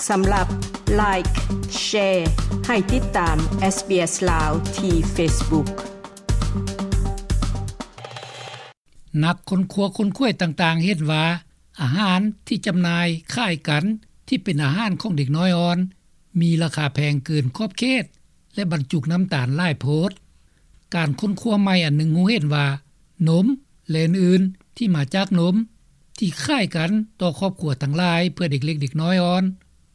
ສຳລັບ Like, Share ໃຫ້ຕິດຕາມ SBS ລາວ ທີ່ Facebook. ນັກຄົ້ນຄວ້າຄົ້ນຄວາຍຕ່າງໆເຫັນວ່າ ອາຫານທີ່ຈຳໜ່າຍຄ້າຍກັນ ທີ່ເປັນອາຫານຂອງເດັກນ້ອຍອ່ອນ ມີລາຄາແພງເກີນຂອບເຂດ ແລະ ບັນຈຸນ້ຳຕານຫຼາຍໂພດ. ການຄົ້ນຄວ້າໃໝ່ອັນໜຶ່ງຮູ້ເຫັນວ່າ ນົມ ແລະ ອື່ນໆ ທີ່ມາຈາກນົມ ທີ່ຄ້າຍກັນຕໍ່ຄອບຄົວທັງຫຼາຍ ເພື່ອເດັກເລັກເດັກນ້ອຍອ່ອນ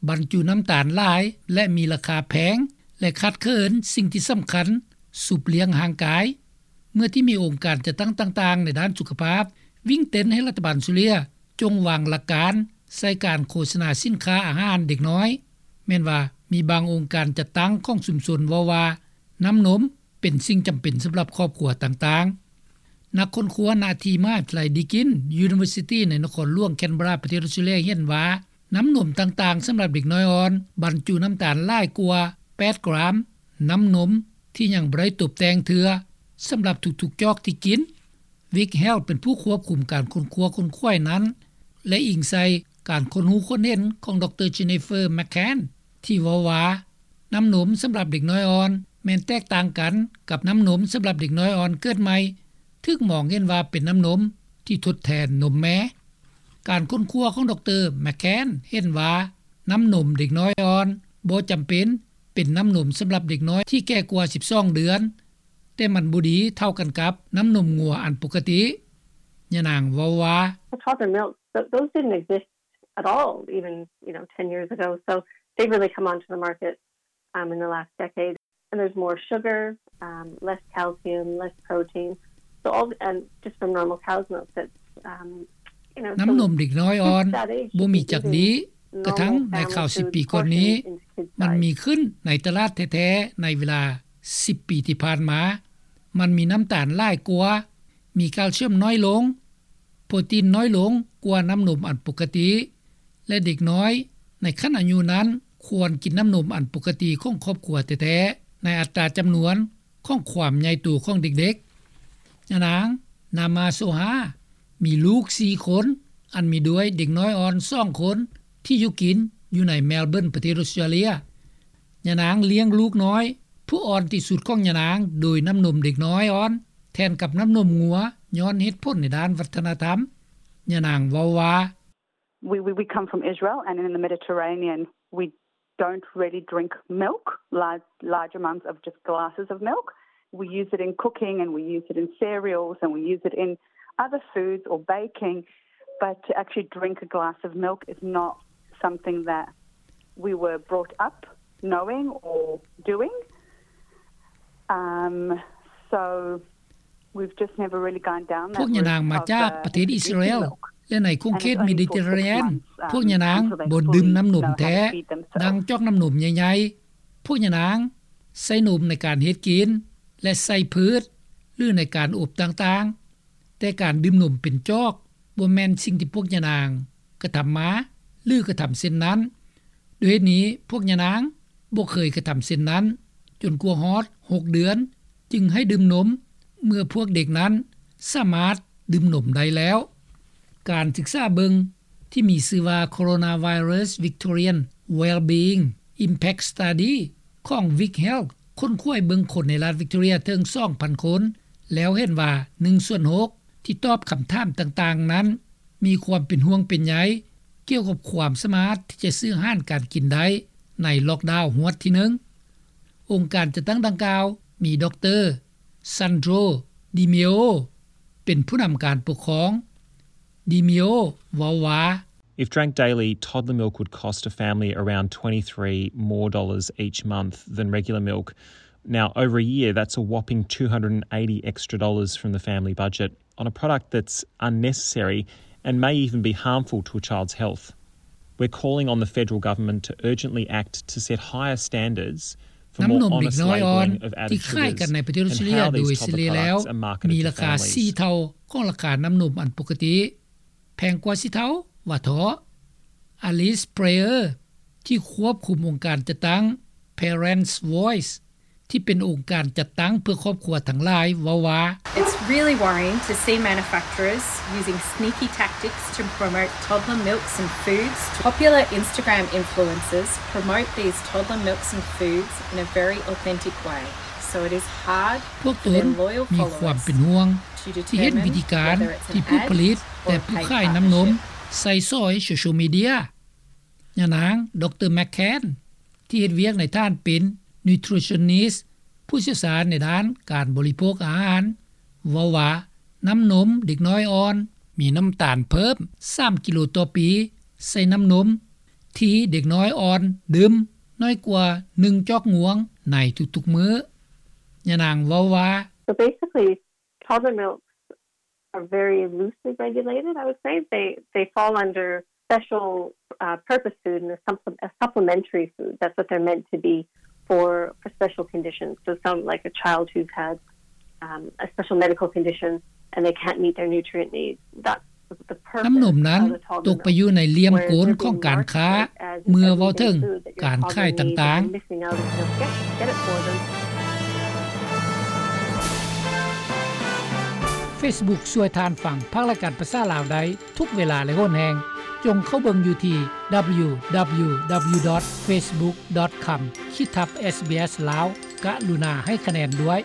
ບັນຈຸນ້ຳຕານຫຼາຍ ແລະ ມີລາຄາແພງ ແລະ ຂາດເຂີນສິ່ງທີ່ສຳຄັນ ຊຸບລ້ຽງຮ່າງກາຍ. ເມື່ອທີ່ມີອົງການຈັດຕັ້ງຕ່າງໆໃນດ້ານສຸຂະພາບ ວິ່ງເຕັ້ນໃຫ້ລັດຖະບານຊູເຣຍ ຈົ່ງວາງຫຼັກການໃສ່ການໂຄສະນາສິນຄ້າອາຫານເດັກນ້ອຍ, ແມ່ນວ່າມີບາງອົງການຈັດຕັ້ງຂອງຊຸມຊົນເວົ້າວ່າ ນ້ຳນົມເປັນສິ່ງຈຳເປັນສຳລັບຄອບຄົວຕ່າງໆ. ນັກຄົ້ນຄວ້ານະທີ່ມະຫາວິທະຍາໄລ Deakin University ໃນນະຄອນຫຼວງ Canberra ປະເທດອອສເຕຣເລັຽ ເຫັນວ່າ ນ້ຳນົມຕ່າງໆສຳລັບເດັກນ້ອຍອ່ອນ ບັນຈຸນ້ຳຕານຫຼາຍກວ່າ ແປດ ກຣາມ ນ້ຳນົມທີ່ຍັງບໍ່ໄດ້ຕົບແຕ່ງເທື່ອ ສຳລັບທຸກໆຈອກທີ່ກິນ. Vic Health ເປັນຜູ້ຄວບຄຸມການຄົ້ນຄວ້າຄົ້ນຄວາຍນັ້ນ ແລະ ອີງໃສ່ການຄົ້ນຮູ້ຄົ້ນເຫັນຂອງ ດຣ Jennifer McCann ທີ່ເວົ້າວ່າ ນ້ຳນົມສຳລັບເດັກນ້ອຍອ່ອນ ແມ່ນແຕກຕ່າງກັນກັບນ້ຳນົມສຳລັບເດັກນ້ອຍອ່ອນເກີດໃໝ່ ຖືກມອງເຫັນວ່າເປັນນ້ຳນົມທີ່ທົດແທນນົມແມ່. ການຄົ້ນຄວ້າຂອງ ດຣ McCann ເຫັນວ່າ ນ້ຳນົມເດັກນ້ອຍອ່ອນບໍ່ຈຳເປັນເປັນນ້ຳນົມສຳລັບເດັກນ້ອຍທີ່ແກ່ກວ່າສິບສອງເດືອນ, ແຕ່ມັນບໍ່ດີເທົ່າກັນກັບນ້ຳນົມງົວອັນປົກກະຕິ. ຍານາງເວົ້າວ່າ Well, toddler milk, th- those didn't exist at all, even, you know, ten years ago. So they've really come onto the market, um, in the last decade. And there's more sugar, um, less calcium, less protein. So all, and just from normal cow's milk, that's, um, you know, ນ້ຳນົມເດັກນ້ອຍອ່ອນບໍ່ມີຈັກດີ ກະທັ່ງໃນຄາວສິບປີກ່ອນນີ້ ມັນມີຂຶ້ນໃນຕະຫຼາດແທ້ໆ ໃນເວລາສິບປີທີ່ຜ່ານມາ. ມັນມີນ້ຳຕານຫຼາຍກວ່າ, ມີແຄລຊຽມໜ້ອຍລົງ, ໂປຣຕີນໜ້ອຍລົງກວ່ານ້ຳນົມອັນປົກກະຕິ ແລະ ເດັກນ້ອຍໃນຂັ້ນອາຍຸນັ້ນຄວນກິນນ້ຳນົມອັນປົກກະຕິຂອງຄອບຄົວແທ້ໆ ໃນອັດຕາຈຳນວນຂອງຄວາມໃຫຍ່ໂຕຂອງເດັກໆ. ຍານາງ ນາມາໂຊຮາ ມີລູກສີ່ຄົນ ອັນມີດ້ວຍເດັກນ້ອຍອ່ອນສອງຄົນ ທີ່ຢູ່ກິນຢູ່ໃນແມລເບີນ ປະເທດອອສເຕຣເລັຽ. ຍານາງລ້ຽງລູກນ້ອຍຜູ້ອ່ອນທີ່ສຸດຂອງຍານາງໂດຍນ້ຳນົມເດັກນ້ອຍອ່ອນ ແທນກັບນ້ຳນົມງົວ ຍ້ອນເຫດຜົນໃນດ້ານວັດທະນະທຳ. ຍານາງເວົ້າວ່າ We, we, we come from Israel, and in the Mediterranean, we don't really drink milk, large, large amounts of just glasses of milk. We use it in cooking, and we use it in cereals, and we use it in other foods or baking. But to actually drink a glass of milk is not something that we were brought up knowing or doing. Um, so ພວກຍານາງມາຈາກປະເທດອິດສະຣາແອນ ແລະ ໃນຂົງເຂດເມດິເຕຣເຣນຽນ ພວກຍານາງບໍ່ດື່ມນ້ຳນົມແທ້ ດັ່ງຈອກນ້ຳນົມໃຫຍ່ໆ. ພວກຍານາງໃສ່ນົມໃນການເຮັດກິນ ແລະ ໃສ່ພືດ ຫຼື ໃນການອົບຕ່າງໆ, ແຕ່ການດື່ມນົມເປັນຈອກບໍ່ແມ່ນສິ່ງທີ່ພວກຍານາງກະທຳມາ ຫຼື ກະທຳເຊັ່ນນັ້ນ. ດ້ວຍເຫດນີ້ ພວກຍານາງບໍ່ເຄີຍກະທຳເຊັ່ນນັ້ນ ຈົນກວ່າຮອດຫົກເດືອນ ຈຶ່ງໃຫ້ດື່ມນົມ ເມື່ອພວກເດັກນັ້ນສາມາດດື່ມນົມໄດ້ແລ້ວ. ການສຶກສາເບິ່ງທີ່ມີຊື່ວ່າ Coronavirus Victorian Wellbeing Impact Study ຂອງ Vic Health ຄົ້ນຄວ້າເບິ່ງຄົນໃນລັດ Victoria ເຖິງສອງພັນຄົນ ແລ້ວເຫັນວ່າໜຶ່ງສ່ວນຫົກ ທີ່ຕອບຄຳຖາມຕ່າງໆນັ້ນ ມີຄວາມເປັນຫ່ວງເປັນໃຍກ່ຽວກັບຄວາມສາມາດທີ່ຈະຊື້ອາຫານການກິນໄດ້ໃນລ໊ອກດາວຮວດທີໜຶ່ງ. ອົງການຈັດຕັ້ງດັ່ງກ່າວມີ ດຣ. Sandro Di Meo ເປັນຜູ້ນຳການປົກຄອງ. Di Meo ເວົ້າວ່າ If drank daily, toddler milk would cost a family around twenty-three more dollars each month than regular milk. Now, over a year, that's a whopping two hundred and eighty extra dollars from the family budget on a product that's unnecessary and may even be harmful to a child's health. We're calling on the federal government to urgently act to set higher standards for more honest labelling of added sugars and how these toddler products are marketed to families. ນ້ຳນົມເດັກນ້ອຍອ່ອນທີ່ຂາຍກັນໃນປະເທດອອສເຕຣເລັຽໂດຍສະເລັຍແລ້ວ ມີລາຄາສີ່ເທົ່າຂອງລາຄານ້ຳນົມອັນປົກກະຕິ, ແພງກວ່າສີ່ເທົ່າ ວ່າເຖາະ. Alice Prayer ທີ່ຄວບຄຸມອົງການຈັດຕັ້ງ Parents Voice ທີ່ເປັນອົງການຈັດຕັ້ງເພື່ອຄອບຄົວທັງຫຼາຍ ເວົ້າວ່າ: It's really worrying to see manufacturers using sneaky tactics to promote toddler milks and foods. Popular Instagram influencers promote these toddler milks and foods in a very authentic way, so it is hard ພວກຕົນມີຄວາມເປັນຫ່ວງ ທີ່ເຫັນວິທີການທີ່ຜູ້ຜະລິດ ແລະ ຜູ້ຂາຍນ້ຳນົມໃຊ້ສອຍໂຊຊຽວມີເດຍ. ຍານາງ ດຣ McCann ທີ່ເຮັດວຽກໃນຖານເປັນ nutritionist ຜູ້ຊ່ຽວຊານໃນດ້ານການບໍລິໂພກອາຫານ ເວົ້າວ່າ ນ້ຳນົມເດັກນ້ອຍອ່ອນ ມີນ້ຳຕານເພີ່ມ ສາມກິໂລຕໍ່ປີ ໃສ່ນ້ຳນົມ ທີ່ເດັກນ້ອຍອ່ອນດື່ມ ໜ້ອຍກວ່າ ໜຶ່ງຈອກງວງ ໃນທຸກໆມື້. ຍານາງເວົ້າວ່າ: So basically, toddler milks are very loosely regulated, I would say. They, they fall under special, uh, purpose food and a supple-, a supplementary food. That's what they're meant to be for, for special conditions. So some, like a child who's had, um, a special medical condition and they can't meet their nutrient needs. That's the purpose of the toddler milk. ນ້ຳນົມນັ້ນຕົກໄປຢູ່ໃນຫຼ່ຽມກົນຂອງການຄ້າ ເມື່ອເວົ້າເຖິງການຂາຍຕ່າງໆ. Whereas they're being marketed as a toddler milk, they're marketing their food that you're probably gonna get it for them. Facebook ຊ່ວຍທ່ານຟັງພາກລາຍການພາສາລາວໄດ້ທຸກເວລາ ແລະ ໂຫນແຮງ. ຈົ່ງເຂົ້າເບິ່ງຢູ່ທີ່ www.facebook.com/sbslao. ກະລຸນາໃຫ້ຄະແນນດ້ວຍ.